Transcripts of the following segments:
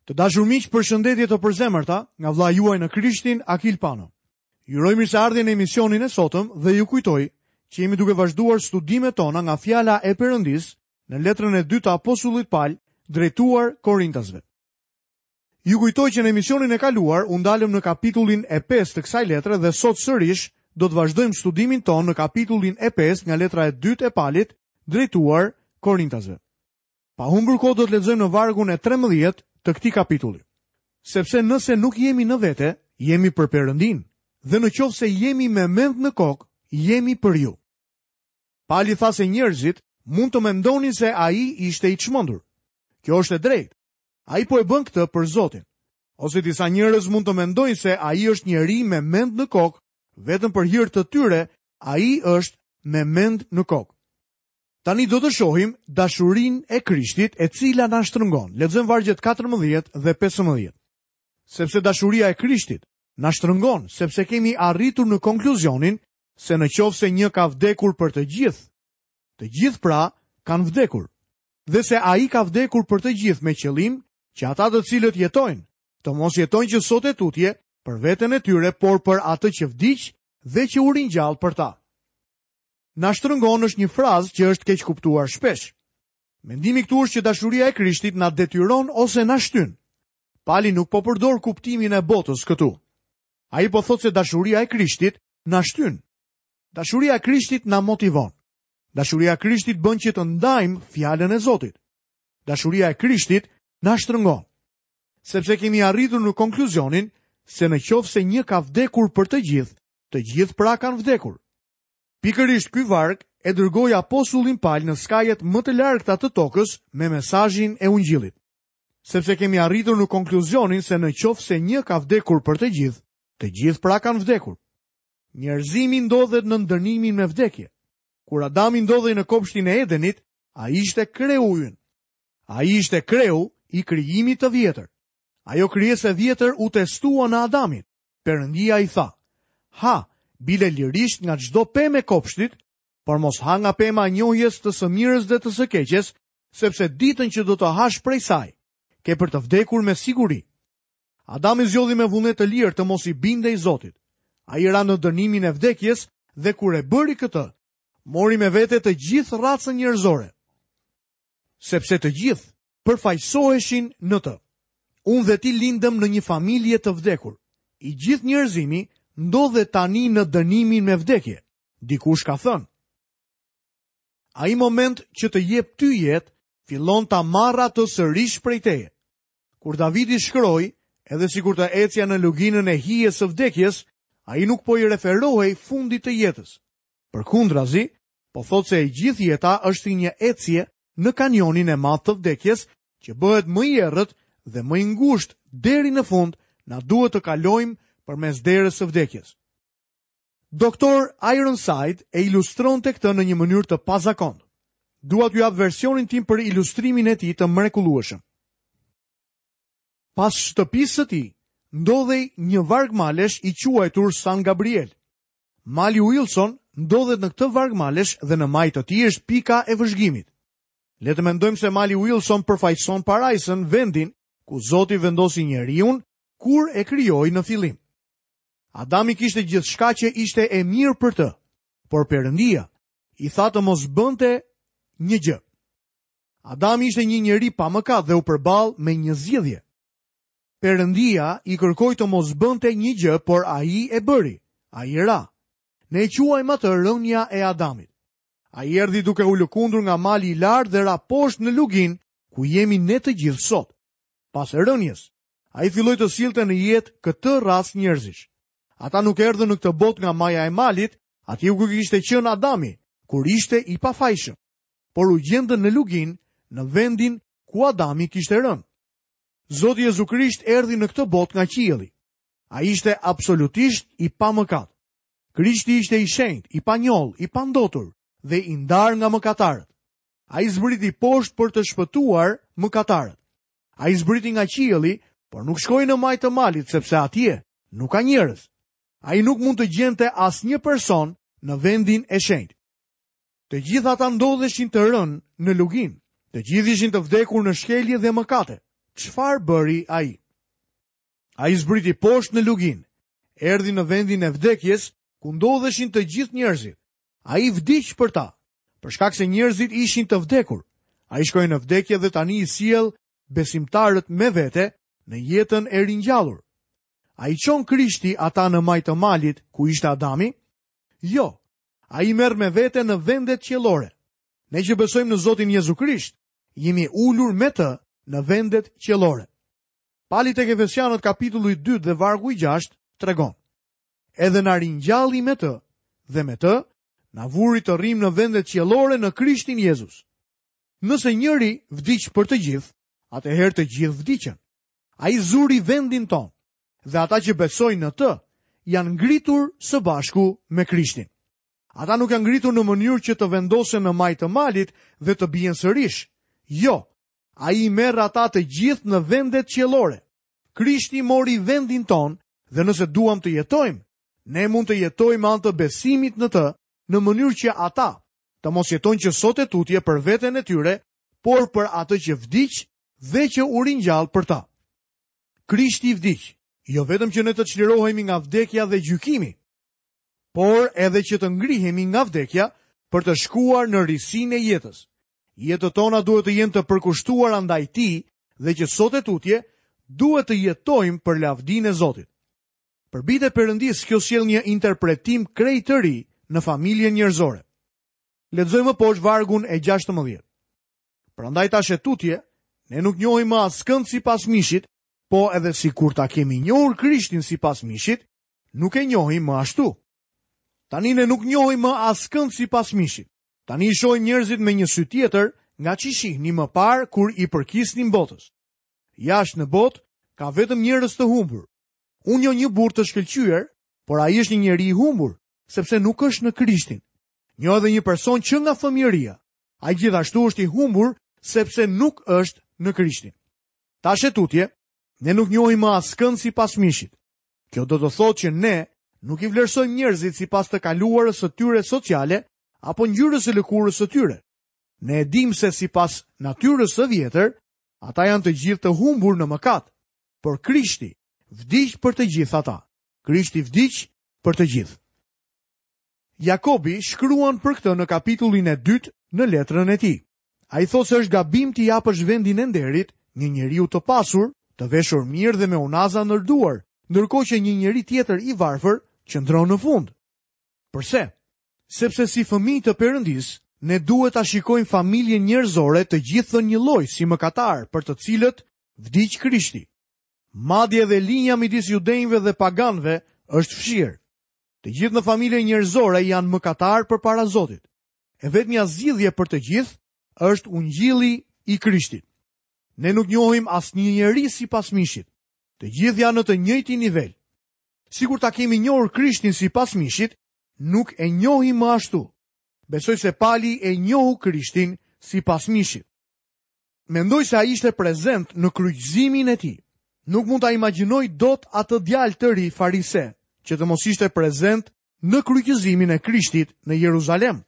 Të dashur miq, përshëndetje të përzemërta nga vëllai juaj në Krishtin, Akil Pano. Ju uroj mirëseardhje në emisionin e sotëm dhe ju kujtoj që jemi duke vazhduar studimet tona nga fjala e Perëndisë në letrën e dytë të apostullit Pal drejtuar Korintasve. Ju kujtoj që në emisionin e kaluar u ndalëm në kapitullin e 5 të kësaj letre dhe sot sërish do të vazhdojmë studimin tonë në kapitullin e 5 nga letra e dytë e Palit drejtuar Korintasve. Pa humbur kohë do të lexojmë në vargun e 13 të këtij kapitulli. Sepse nëse nuk jemi në vete, jemi për Perëndinë, dhe në qoftë se jemi me mend në kokë, jemi për ju. Pali tha se njerëzit mund të mendonin se ai ishte i çmendur. Kjo është e drejtë. Ai po e bën këtë për Zotin. Ose disa njerëz mund të mendojnë se ai është njeri me mend në kokë, vetëm për hir të tyre, ai është me mend në kokë. Tani do të shohim dashurinë e Krishtit e cila na shtrëngon. Lexojmë vargjet 14 dhe 15. Sepse dashuria e Krishtit na shtrëngon, sepse kemi arritur në konkluzionin se në qoftë se një ka vdekur për të gjithë, të gjithë pra kanë vdekur. Dhe se ai ka vdekur për të gjithë me qëllim që ata të cilët jetojnë, të mos jetojnë që sot e tutje për veten e tyre, por për atë që vdiq dhe që u ringjall për ta. Na shtrëngon është një frazë që është keqkuptuar shpesh. Mendimi këtu është që dashuria e Krishtit na detyron ose na shtyn. Pali nuk po përdor kuptimin e botës këtu. Ai po thotë se dashuria e Krishtit na shtyn. Dashuria e Krishtit na motivon. Dashuria e Krishtit bën që të ndajmë fjalën e Zotit. Dashuria e Krishtit na shtrëngon. Sepse kemi arritur në konkluzionin se në qoftë se një ka vdekur për të gjithë, të gjithë pra kanë vdekur. Pikërisht ky varg e dërgoi apostullin Pal në skajet më të largëta të tokës me mesazhin e ungjillit. Sepse kemi arritur në konkluzionin se në qoftë se një ka vdekur për të gjithë, të gjithë pra kanë vdekur. Njerëzimi ndodhet nën dënimin me vdekje. Kur Adami ndodhej në kopshtin e Edenit, ai ishte kreu ynë. Ai ishte kreu i krijimit të vjetër. Ajo krijesë e vjetër u testua në Adamin. Perëndia i tha, Ha, bile lirisht nga çdo pemë e kopshtit, por mos ha nga pema e njohjes të së mirës dhe të së keqes, sepse ditën që do të hash prej saj, ke për të vdekur me siguri. Adami zgjodhi me vullnet të lirë të mos i bindej Zotit. Ai ra në dënimin e vdekjes dhe kur e bëri këtë, mori me vete të gjithë racën njerëzore. Sepse të gjithë përfaqësoheshin në të. Unë dhe ti lindëm në një familje të vdekur. I gjithë njerëzimi ndodhet tani në dënimin me vdekje. Dikush ka thënë. Ai moment që të jep ty jetë, fillon ta marrë atë sërish prej teje. Kur Davidi shkroi, edhe sikur të ecja në luginën e hijes së vdekjes, ai nuk po i referohej fundit të jetës. Përkundrazi, po thotë se e gjithë jeta është si një ecje në kanionin e madh të vdekjes, që bëhet më i errët dhe më i ngushtë deri në fund, na duhet të kalojmë përmes derës së vdekjes. Doktor Ironside e ilustronte këtë në një mënyrë të pazakontë. Dua t'ju jap versionin tim për ilustrimin e tij të mrekullueshëm. Pas shtëpisë së tij ndodhej një varg malesh i quajtur San Gabriel. Mali Wilson ndodhet në këtë varg malesh dhe në majë të tij është pika e vëzhgimit. Le të mendojmë se mali Wilson përfaqëson parajsën, vendin ku Zoti vendosi njeriun kur e krijoi në fillim. Adami kishte gjithçka që ishte e mirë për të, por Perëndia i tha të mos bënte një gjë. Adami ishte një njeri pa mëkat dhe u përball me një zgjidhje. Perëndia i kërkoi të mos bënte një gjë, por ai e bëri. Ai ra. Ne e quajmë atë rënia e Adamit. Ai erdhi duke u lëkundur nga mali i lartë dhe ra poshtë në luginë ku jemi ne të gjithë sot. Pas rënies, ai filloi të sillte në jetë këtë racë njerëzish. Ata nuk erdhën në këtë botë nga maja e malit, atje ku kishte qenë Adami, kur ishte i pafajshëm, por u gjendën në luginë, në vendin ku Adami kishte rënë. Zoti Jezu Krisht erdhi në këtë botë nga qielli. Ai ishte absolutisht i pamëkat. Krishti ishte i shenjtë, i panjollë, i pandotur dhe i ndarë nga mëkatarët. Ai zbriti poshtë për të shpëtuar mëkatarët. Ai zbriti nga qielli, por nuk shkoi në majë të malit sepse atje nuk ka njerëz. Ai nuk mund të gjente asnjë person në vendin e shenjtë. Të gjithë ata ndodheshin të rënë në luginë. Të gjithë ishin të vdekur në shkelje dhe mëkate. Çfarë bëri ai? Ai zbriti poshtë në luginë, erdhi në vendin e vdekjes, ku ndodheshin të gjithë njerëzit. Ai vdiq për ta, për shkak se njerëzit ishin të vdekur. Ai shkoi në vdekje dhe tani i sjell besimtarët me vete në jetën e ringjallur. A i çon Krishti ata në majë të malit ku ishte Adami? Jo, ai i merr me vete në vendet qiellore. Ne që besojmë në Zotin Jezu Krisht, jemi ulur me të në vendet qiellore. Pali tek Efesianët kapitulli 2 dhe vargu i 6 tregon. Edhe na ringjalli me të dhe me të na vuri të rrimë në vendet qiellore në Krishtin Jezus. Nëse njëri vdiq për të gjithë, atëherë të gjithë vdiqën. Ai zuri vendin tonë dhe ata që besojnë në të janë ngritur së bashku me Krishtin. Ata nuk janë ngritur në mënyrë që të vendosen në majë të malit dhe të bien sërish. Jo, ai i merr ata të gjithë në vendet qiellore. Krishti mori vendin tonë dhe nëse duam të jetojmë, ne mund të jetojmë me anë të besimit në të, në mënyrë që ata të mos jetojnë që sot e tutje për veten e tyre, por për atë që vdiq dhe që u ringjall për ta. Krishti vdiq, jo vetëm që ne të çlirohemi nga vdekja dhe gjykimi, por edhe që të ngrihemi nga vdekja për të shkuar në risinë e jetës. Jetët tona duhet të jenë të përkushtuara ndaj tij dhe që sot e tutje duhet të jetojmë për lavdinë e Zotit. Për bijtë e Perëndisë kjo sjell një interpretim krejt të ri në familjen njerëzore. Lexojmë më poshtë vargun e 16. Prandaj tash e tutje, ne nuk njohim më askënd sipas mishit, po edhe sikur ta kemi njohur Krishtin sipas mishit, nuk e njohim më ashtu. Tani ne nuk njohim më askënd sipas mishit. Tani i shohim njerëzit me një sy tjetër nga ç'i shihnim më parë kur i përkisnim botës. Jashtë në botë ka vetëm njerëz të humbur. Unë njoh një burrë të shkëlqyer, por ai është një njeri i humbur, sepse nuk është në Krishtin. Njoh edhe një person që nga fëmijëria. Ai gjithashtu është i humbur sepse nuk është në Krishtin. Tash e tutje, ne nuk njohim më askënd sipas mishit. Kjo do të thotë që ne nuk i vlerësojmë njerëzit sipas të kaluarës së tyre sociale apo ngjyrës së lëkurës së tyre. Ne e dimë se sipas natyrës së vjetër, ata janë të gjithë të humbur në mëkat, por Krishti vdiq për të gjithë ata. Krishti vdiq për të gjithë. Jakobi shkruan për këtë në kapitullin e dytë në letrën e tij. Ai thotë se është gabim t'i japësh vendin e nderit një njeriu të pasur, të veshur mirë dhe me unaza ndër duar, ndërkohë që një njeri tjetër i varfër qëndron në fund. Përse? Sepse si fëmijë të Perëndisë, ne duhet ta shikojmë familjen njerëzore të gjithë njëlloj si mëkatarë për të cilët vdiq Krishti. Madje edhe linja midis judenjve dhe paganëve është fshirë. Të gjithë në familjen njerëzore janë mëkatarë përpara Zotit. E vetmja zgjidhje për të gjithë është ungjilli i Krishtit. Ne nuk njohim asnjë njeri sipas mishit. Të gjithë janë në të njëjtin nivel. Sikur ta kemi njohur Krishtin sipas mishit, nuk e njohim më ashtu. Besoj se Pali e njohu Krishtin sipas mishit. Mendoj se ai ishte prezent në kryqëzimin e tij. Nuk mund ta imagjinoj dot atë djalë të ri farise që të mos ishte prezent në kryqëzimin e Krishtit në Jeruzalem.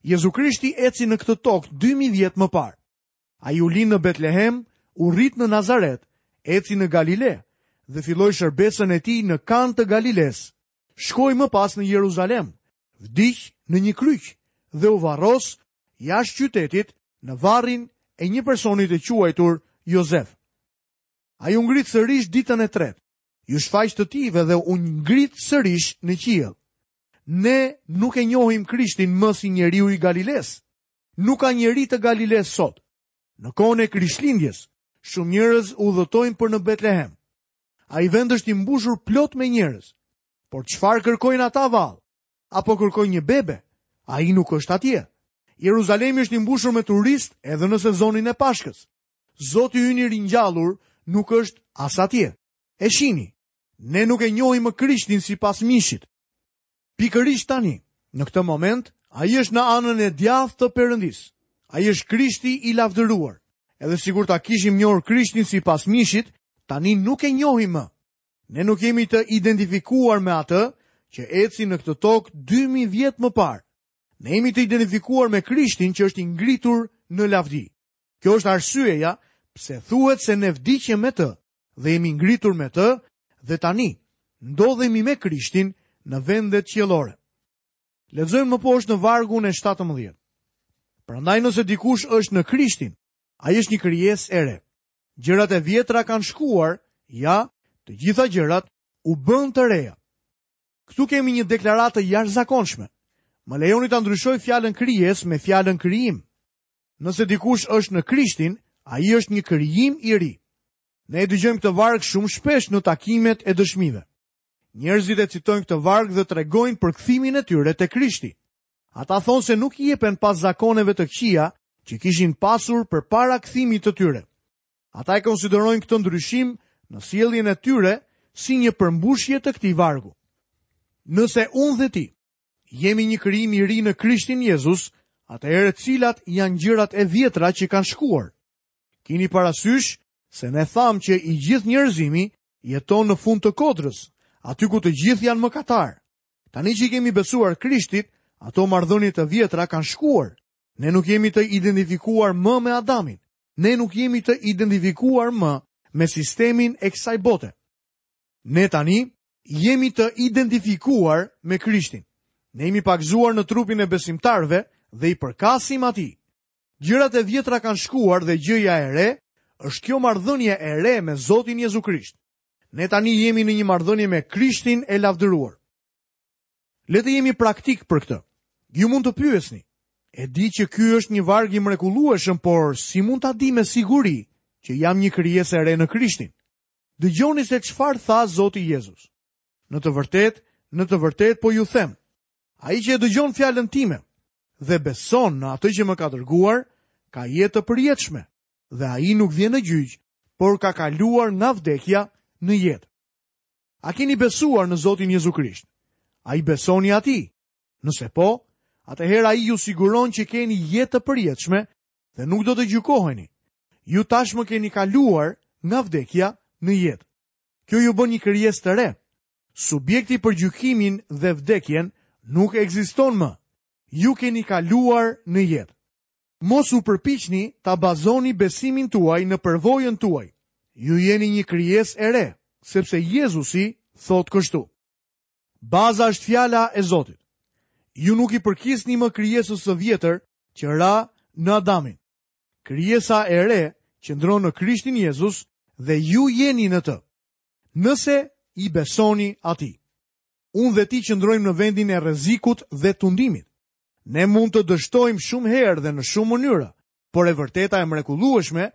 Jezu Krishti eci në këtë tokë 2000 vjet më parë. Ai u lind në Betlehem, u rrit në Nazaret, eci në Galile dhe filloi shërbesën e tij në Kanë të Galilesë. Shkoi më pas në Jeruzalem, vdiq në një kryq dhe u varros jashtë qytetit në varrin e një personi të quajtur Jozef. Ai u ngrit sërish ditën e tretë. Iu shfaq të tijve dhe u ngrit sërish në qiell. Ne nuk e njohim Krishtin më si njeriu i Galilesë. Nuk ka njeri të Galilesë sot. Në kohën e Krishtlindjes, shumë njerëz udhëtojnë për në Betlehem. Ai vend është i mbushur plot me njerëz. Por çfarë kërkojnë ata vallë? Apo kërkojnë një bebe? Ai nuk është atje. Jeruzalemi është i mbushur me turistë edhe në sezonin e Pashkës. Zoti ynë i ringjallur nuk është as atje. E shihni, ne nuk e njohim më Krishtin sipas mishit. Pikërisht tani, në këtë moment, ai është në anën e djathtë të Perëndisë. Ai është Krishti i lavdëruar. Edhe sikur ta kishim njohur Krishtin sipas mishit, tani nuk e njohim më. Ne nuk jemi të identifikuar me atë që eci në këtë tokë 2000 vjet më parë. Ne jemi të identifikuar me Krishtin që është i ngritur në lavdi. Kjo është arsyeja. Pse thuhet se ne vdiqëm me të dhe jemi ngritur me të dhe tani ndodhemi me Krishtin në vendet qiellore. Lexojmë më poshtë në vargun e 17. Prandaj nëse dikush është në Krishtin, ai është një krijesë e re. Gjërat e vjetra kanë shkuar, ja, të gjitha gjërat u bënë të reja. Këtu kemi një deklaratë të jashtëzakonshme. Më lejoni ta ndryshoj fjalën krijesë me fjalën krijim. Nëse dikush është në Krishtin, ai është një krijim i ri. Ne e dëgjojmë këtë varg shumë shpesh në takimet e dëshmive. Njerëzit e citojnë këtë varg dhe tregojnë për kthimin e tyre te Krishti. Ata thonë se nuk jepen pas zakoneve të këqija që kishin pasur përpara kthimit të tyre. Ata e konsiderojnë këtë ndryshim në sjelljen e tyre si një përmbushje të këtij vargu. Nëse unë dhe ti jemi një krijim i ri në Krishtin Jezus, atëherë cilat janë gjërat e vjetra që kanë shkuar? Kini parasysh se ne thamë që i gjithë njerëzimi jeton në fund të kodrës, aty ku të gjithë janë mëkatarë. Tani që i kemi besuar Krishtit, ato marrëdhënie të vjetra kanë shkuar. Ne nuk jemi të identifikuar më me Adamin. Ne nuk jemi të identifikuar më me sistemin e kësaj bote. Ne tani jemi të identifikuar me Krishtin. Ne jemi pagëzuar në trupin e besimtarëve dhe i përkasim atij. Gjërat e vjetra kanë shkuar dhe gjëja e re është kjo marrëdhënie e re me Zotin Jezu Krisht. Ne tani jemi në një marrëdhënie me Krishtin e lavdëruar. Le të jemi praktikë për këtë. Ju mund të pyesni, e di që ky është një varg i mrekullueshëm, por si mund ta di me siguri që jam një krijesë e re në Krishtin? Dëgjoni se çfarë tha Zoti Jezus. Në të vërtetë, në të vërtetë po ju them, ai që e dëgjon fjalën time dhe beson në atë që më ka dërguar, ka jetë të përjetshme dhe ai nuk vjen në gjyq, por ka kaluar nga vdekja në jetë. A keni besuar në Zotin Jezu Krisht? A i besoni atij? Nëse po, atëherë ai ju siguron që keni jetë të përjetshme dhe nuk do të gjykoheni. Ju tashmë keni kaluar nga vdekja në jetë. Kjo ju bën një krijesë të re. Subjekti për gjykimin dhe vdekjen nuk ekziston më. Ju keni kaluar në jetë. Mos u përpiqni ta bazoni besimin tuaj në përvojën tuaj. Ju jeni një krijesë e re, sepse Jezusi thotë kështu. Baza është fjala e Zotit. Ju nuk i përkisni më krijesës së vjetër që ra në Adamin. Krijesa e re qëndron në Krishtin Jezus dhe ju jeni në të. Nëse i besoni atij. Unë dhe ti qëndrojmë në vendin e rrezikut dhe tundimit. Ne mund të dështojmë shumë herë dhe në shumë mënyra, por e vërteta e mrekullueshme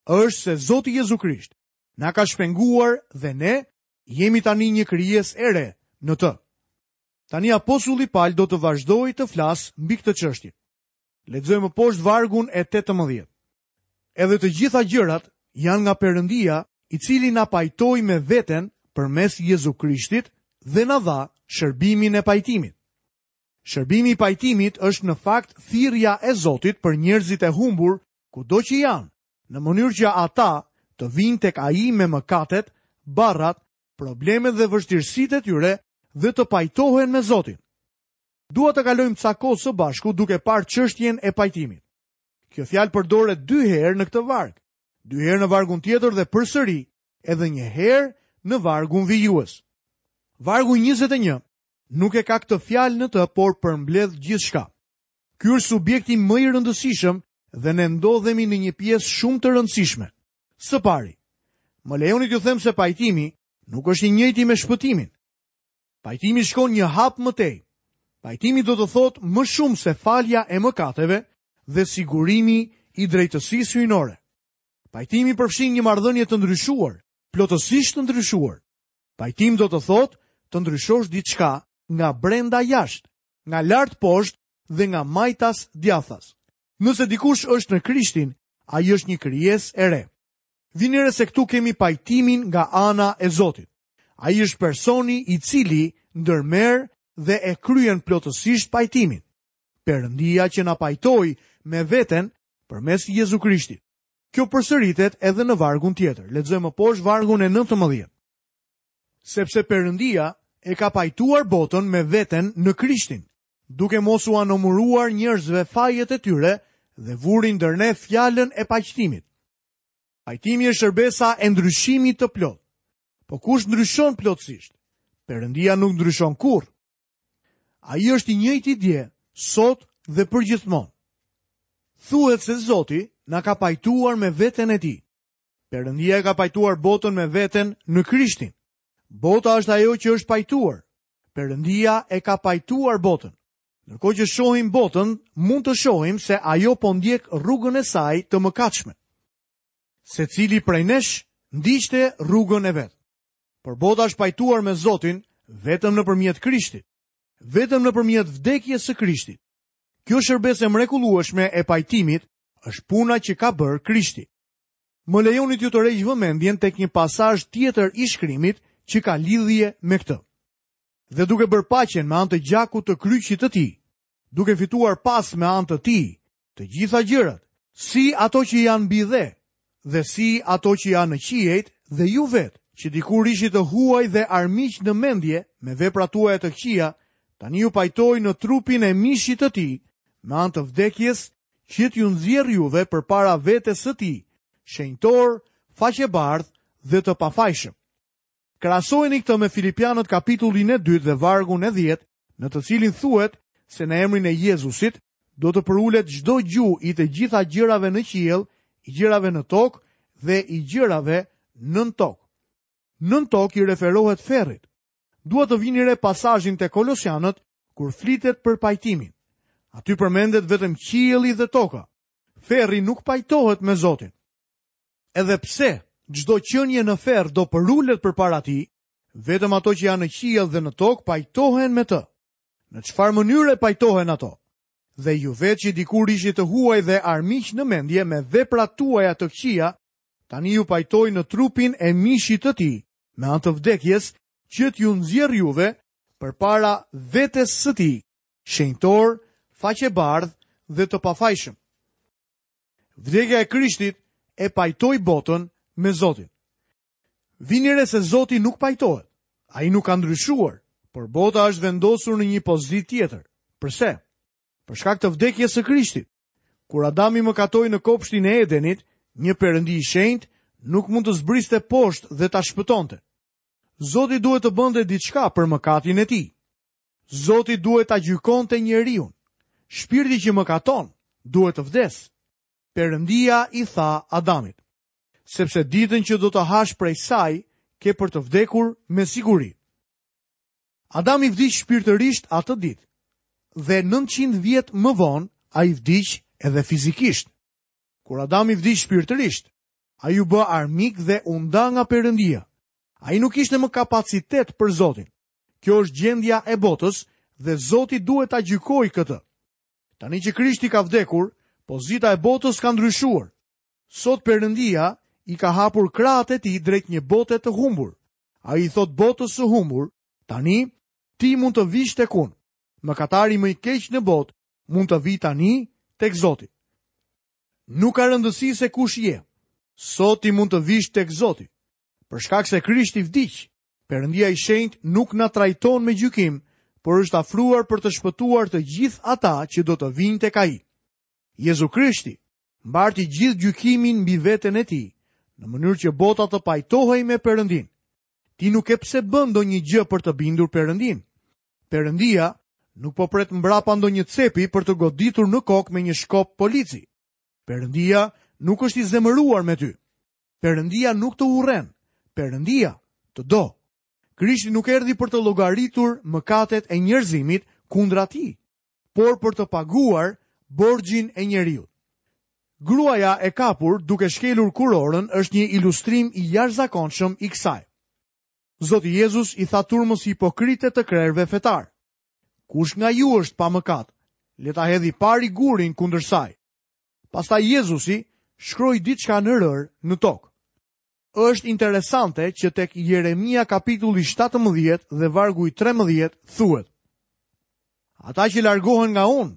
është se Zoti Jezu Krisht na ka shpenguar dhe ne jemi tani një krijesë e re në të. Tani apostulli Pal do të vazhdojë të flasë mbi këtë çështje. Lexojmë më poshtë vargun e 18. Edhe të gjitha gjërat janë nga Perëndia, i cili na pajtoi me veten përmes Jezu Krishtit dhe na dha shërbimin e pajtimit. Shërbimi i pajtimit është në fakt thirrja e Zotit për njerëzit e humbur kudo që janë, në mënyrë që ata të vijnë tek ai me mëkatet, barrat, problemet dhe vështirësitë e tyre dhe të pajtohen me Zotin. Dua të kalojmë ca kohë së bashku duke parë çështjen e pajtimit. Kjo fjalë përdoret dy herë në këtë varg, dy herë në vargun tjetër dhe përsëri edhe një herë në vargun vijues. Vargu 21 nuk e ka këtë fjalë në të, por përmbledh gjithçka. Ky është subjekti më i rëndësishëm dhe ne ndodhemi në një pjesë shumë të rëndësishme. Së pari, më lejoni t'ju them se pajtimi nuk është i njëjti me shpëtimin. Pajtimi shkon një hap më tej. Pajtimi do të thotë më shumë se falja e mëkateve dhe sigurimi i drejtësisë hyjnore. Pajtimi përfshin një marrëdhënie të ndryshuar, plotësisht të ndryshuar. Pajtim do të thotë të ndryshosh diçka nga brenda jashtë, nga lart poshtë dhe nga majtas djathtas. Nëse dikush është në Krishtin, ai është një krijesë e re. Vini re se këtu kemi pajtimin nga ana e Zotit. Ai është personi i cili ndërmerr dhe e kryen plotësisht pajtimin. Perëndia që na pajtoi me veten përmes Jezu Krishtit. Kjo përsëritet edhe në vargun tjetër. Lexojmë më poshtë vargun e 19. Sepse Perëndia e ka pajtuar botën me veten në Krishtin, duke mos ua numëruar njerëzve fajet e tyre dhe vuri ndër ne fjalën e paqtimit. Pajtimi është shërbesa e ndryshimit të plotë. Po kush ndryshon plotësisht? Perëndia nuk ndryshon kurrë. Ai është i njëjti dje, sot dhe përgjithmonë. Thuhet se Zoti na ka pajtuar me veten e tij. Perëndia e ka pajtuar botën me veten në Krishtin. Bota është ajo që është pajtuar. Perëndia e ka pajtuar botën. Ndërkohë që shohim botën, mund të shohim se ajo po ndjek rrugën e saj të mëkatshme. Secili prej nesh ndiqte rrugën e vet. Por bota është pajtuar me Zotin vetëm nëpërmjet Krishtit, vetëm nëpërmjet vdekjes së Krishtit. Kjo shërbesë e mrekullueshme e pajtimit është puna që ka bërë Krishti. Më lejoni t'ju tërheq vëmendjen tek një pasazh tjetër i shkrimit që ka lidhje me këtë. Dhe duke bërë paqen me anë të gjakut të kryqit të tij, duke fituar pas me anë të tij të gjitha gjërat, si ato që janë mbi dhe, dhe si ato që janë në qiejt dhe ju vetë, që dikur ishit të huaj dhe armiq në mendje me veprat tuaja të këqija, tani ju pajtoi në trupin e mishit të tij, me anë të vdekjes që t'ju nxjerrë juve përpara vetes së tij, shenjtorë, faqebardhë dhe të pafajshëm. Krahasojeni këtë me Filipianët kapitullin e dytë dhe vargun e 10, në të cilin thuhet se në emrin e Jezusit do të përulet çdo gju i të gjitha gjërave në qiell, i gjërave në tokë dhe i gjërave nën tokë. Nën tokë i referohet ferrit. Dua të vini re pasazhin te Kolosianët kur flitet për pajtimin. Aty përmendet vetëm qielli dhe toka. Ferri nuk pajtohet me Zotin. Edhe pse çdo qenie në ferr do përulet përpara tij, vetëm ato që janë në qiell dhe në tokë pajtohen me të. Në çfarë mënyre pajtohen ato? Dhe ju vetë që dikur ishit të huaj dhe armiq në mendje me veprat tuaja të këqija, tani ju pajtoi në trupin e mishit të tij, me anë të vdekjes, që t'ju nxjerrë juve përpara vetes së tij, shenjtorë, faqebardhë dhe të pafajshëm. Vdekja e Krishtit e pajtoi botën me Zotin. Vini re se Zoti nuk pajtohet. Ai nuk ka ndryshuar, por bota është vendosur në një pozitë tjetër. Përse? Për shkak të vdekjes së Krishtit. Kur Adami mëkatoi në kopshtin e Edenit, një perëndi i shenjtë nuk mund të zbriste poshtë dhe ta shpëtonte. Zoti duhet të bënte diçka për mëkatin e tij. Zoti duhet ta gjykonte njeriun. Shpirti që mëkaton duhet të vdesë. Perëndia i tha Adamit, sepse ditën që do të hash prej saj, ke për të vdekur me siguri. Adami vdiq shpirtërisht atë ditë dhe 900 vjet më vonë ai vdiq edhe fizikisht. Kur Adami vdiq shpirtërisht, ai u bë armik dhe u nda nga Perëndia. Ai nuk kishte më kapacitet për Zotin. Kjo është gjendja e botës dhe Zoti duhet ta gjykojë këtë. Tani që Krishti ka vdekur, pozita e botës ka ndryshuar. Sot Perëndia i ka hapur krahët e tij drejt një bote të humbur. Ai i thotë botës së humbur, tani ti mund të vish tek unë. Mëkatari më i keq në botë mund të vijë tani tek Zoti. Nuk ka rëndësi se kush je. Sot ti mund të vish tek Zoti. Për shkak se Krishti vdiq, Perëndia i shenjtë nuk na trajton me gjykim, por është afruar për të shpëtuar të gjithë ata që do të vijnë tek ai. Jezu Krishti mbarti gjithë gjykimin mbi veten e tij, në mënyrë që bota të pajtohej me Perëndinë. Ti nuk ke pse bën ndonjë gjë për të bindur Perëndinë. Perëndia nuk po pret mbrapa ndonjë cepi për të goditur në kokë me një shkop polici. Perëndia nuk është i zemëruar me ty. Perëndia nuk të urren. Perëndia të do. Krishti nuk erdhi për të llogaritur mëkatet e njerëzimit kundra tij, por për të paguar borxhin e njeriut. Gruaja e kapur duke shkelur kurorën është një ilustrim i jashtëzakonshëm i kësaj. Zoti Jezus i tha turmës hipokrite të krerëve fetarë: Kush nga ju është pa mëkat, le ta hedhë i pari gurin kundër saj. Pastaj Jezusi shkroi diçka në rërë në tokë. Është interesante që tek Jeremia kapitulli 17 dhe vargu i 13 thuhet: Ata që largohen nga unë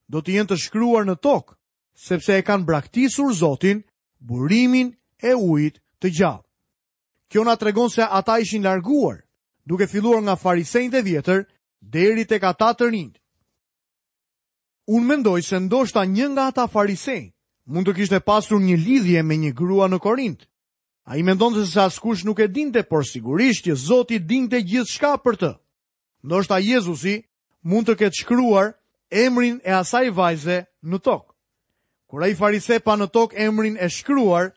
do të jenë të shkruar në tokë, sepse e kanë braktisur Zotin, burimin e ujit të gjallë. Kjo na tregon se ata ishin larguar, duke filluar nga farisenjtë e vjetër deri tek ata të rinjtë. Unë mendoj se ndoshta një nga ata farisenj. Mund të kishte pasur një lidhje me një grua në Korint. Ai mendonte se askush nuk e dinte, por sigurisht që Zoti dinte gjithçka për të. Ndoshta Jezusi mund të ketë shkruar emrin e asaj vajze në tokë. Kur ai farise pa në tokë emrin e shkruar,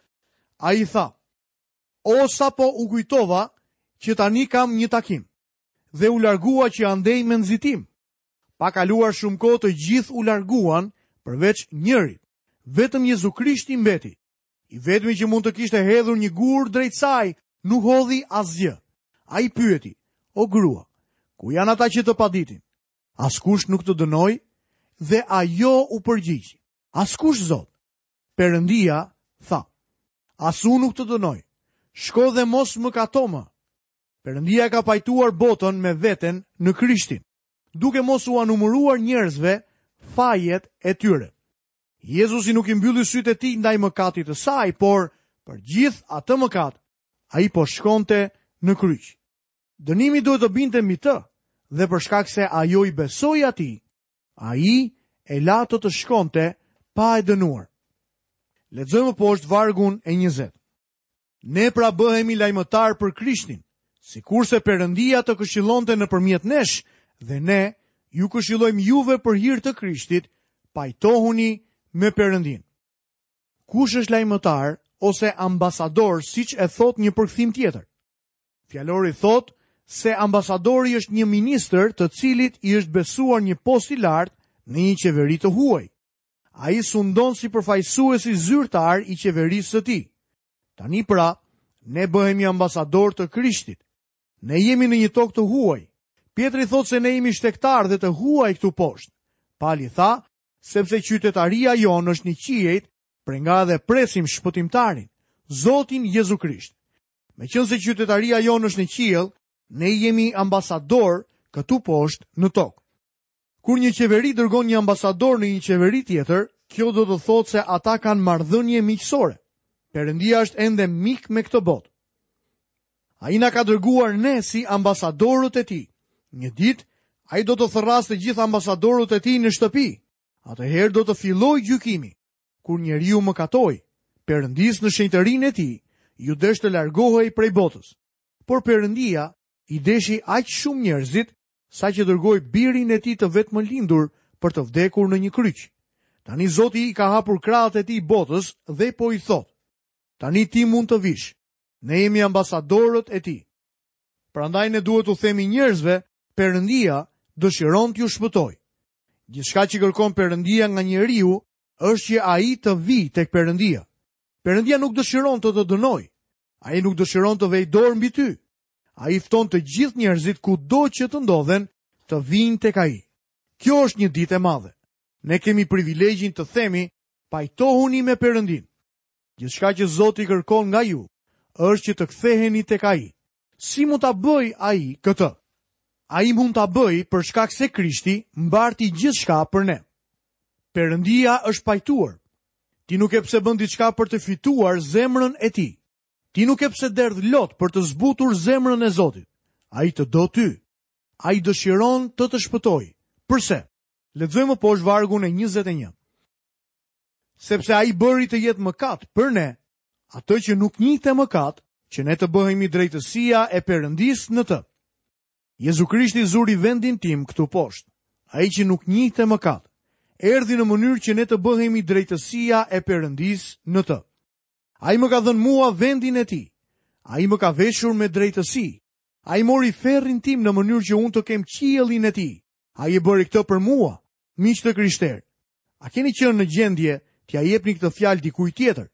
ai tha: O sapo u kujtova që tani kam një takim. Dhe u largua që andej me nxitim. Pa kaluar shumë kohë të gjithë u larguan përveç njërit. Vetëm Jezu Krishti mbeti. I vetmi që mund të kishte hedhur një gur drejt saj, nuk hodhi asgjë. Ai pyeti, o grua, ku janë ata që të paditin? Askush nuk të dënoi? Dhe ajo u përgjigj, askush Zot. Perëndia tha, as unë nuk të dënoj. Shko dhe mos mëkato më. Perëndia e ka pajtuar botën me veten në Krishtin, duke mos ua numëruar njerëzve fajet e tyre. Jezusi nuk i mbylli sytë e tij ndaj mëkatit të saj, por për gjithë atë mëkat, ai po shkonte në kryq. Dënimi duhet të binte mbi të, dhe për shkak se ajo i besoi atij, ai e la atë të shkonte pa e dënuar. Lexojmë poshtë vargun e 20. Ne pra bëhemi lajmëtarë për Krishtin, sikurse Perëndia të këshillonte nëpërmjet nesh dhe ne ju këshillojmë juve për hir të Krishtit, pajtohuni me Perëndinë. Kush është lajmëtar ose ambasador, siç e thotë një përkthim tjetër? Fjalori thotë se ambasadori është një ministër të cilit i është besuar një post i lartë në një qeveri të huaj. Ai sundon si përfaqësuesi zyrtar i qeverisë së tij. Tani pra, ne bëhemi ambasadorë të Krishtit. Ne jemi në një tokë të huaj. Pjetri thotë se ne jemi shtegtarë dhe të huaj këtu poshtë. Pali tha, sepse qytetaria jonë është në qiejt, prej nga edhe presim shpëtimtarin, Zotin Jezu Krisht. Meqenëse qytetaria jonë është në qiell, ne jemi ambasadorë këtu poshtë në tokë. Kur një qeveri dërgon një ambasador në një qeveri tjetër, kjo do të thotë se ata kanë marrëdhënie miqësore. Perëndia është ende mik me këtë botë. Ai na ka dërguar ne si ambasadorët e tij. Një ditë, ai do të thërrasë të gjithë ambasadorët e tij në shtëpi. Atëherë do të fillojë gjykimi. Kur njeriu mëkatoi, Perëndisë në shenjtërinë e tij, iu desh të largohej prej botës. Por Perëndia i deshi aq shumë njerëzit, saqë dërgoi birin e tij të vetëmlindur për të vdekur në një kryq. Tani Zoti i ka hapur krahët e tij botës dhe po i thotë, tani ti mund të vish, ne jemi ambasadorët e tij. Prandaj ne duhet t'u themi njerëzve, Perëndia dëshiron t'ju shpëtojë. Gjithçka që kërkon Perëndia nga njeriu është që ai të vijë tek Perëndia. Perëndia nuk dëshiron të të dënojë. Ai nuk dëshiron të vejë dorë mbi ty. Ai fton të gjithë njerëzit kudo që të ndodhen të vijnë tek ai. Kjo është një ditë e madhe. Ne kemi privilegjin të themi pajtohuni me Perëndinë. Gjithçka që Zoti kërkon nga ju është që të ktheheni tek ai. Si mund ta bëjë ai këtë? Ai mund ta bëjë për shkak se Krishti mbarti gjithçka për ne. Perëndia është pajtuar. Ti nuk ke pse bën diçka për të fituar zemrën e tij. Ti nuk ke pse derdh lot për të zbutur zemrën e Zotit. Ai të do ty. Ai dëshiron të të shpëtojë. Përse? Lexojmë më poshtë vargun e 21. Sepse ai bëri të jetë mëkat për ne, atë që nuk njihte mëkat, që ne të bëhemi drejtësia e Perëndisë në të. Jezu Krishti zuri vendin tim këtu poshtë. Ai që nuk njihte mëkat, erdhi në mënyrë që ne të bëhemi drejtësia e Perëndisë në të. Ai më ka dhënë mua vendin e tij. Ai më ka veshur me drejtësi. Ai mori ferrin tim në mënyrë që unë të kem qiellin e tij. Ai e bëri këtë për mua, miq të krishterë. A keni qenë në gjendje t'ia jepni këtë fjalë dikujt tjetër?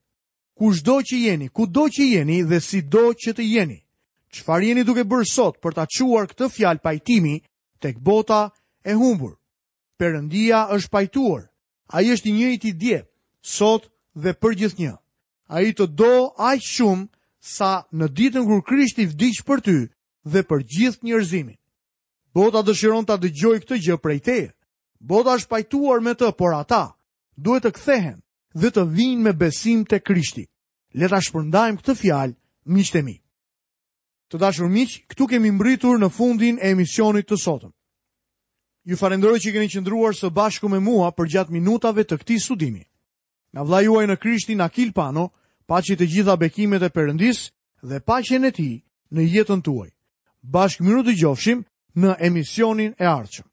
Kushdo që jeni, kudo që jeni dhe sido që të jeni, çfarë jeni duke bërë sot për ta çuar këtë fjalë pajtimi tek bota e humbur? Perëndia është pajtuar. Ai është i njëjti dje, sot dhe përgjithnjë. Ai të do aq shumë sa në ditën kur Krishti vdiq për ty dhe për gjithë njerëzimin. Bota dëshiron ta dëgjojë këtë gjë prej teje. Bota është pajtuar me të, por ata duhet të kthehen dhe të vijnë me besim te Krishti. Le ta shpërndajmë këtë fjalë, miqtë e mi. Të dashur miq, këtu kemi mbërritur në fundin e emisionit të sotëm. Ju falënderoj që keni qëndruar së bashku me mua përgjatë minutave të këtij studimi. Nga vëllai juaj në Krishtin Akil Pano, paçi të gjitha bekimet e Perëndisë dhe paqen e tij në jetën tuaj. Bashkë mirudëgjofshim në emisionin e ardhshëm.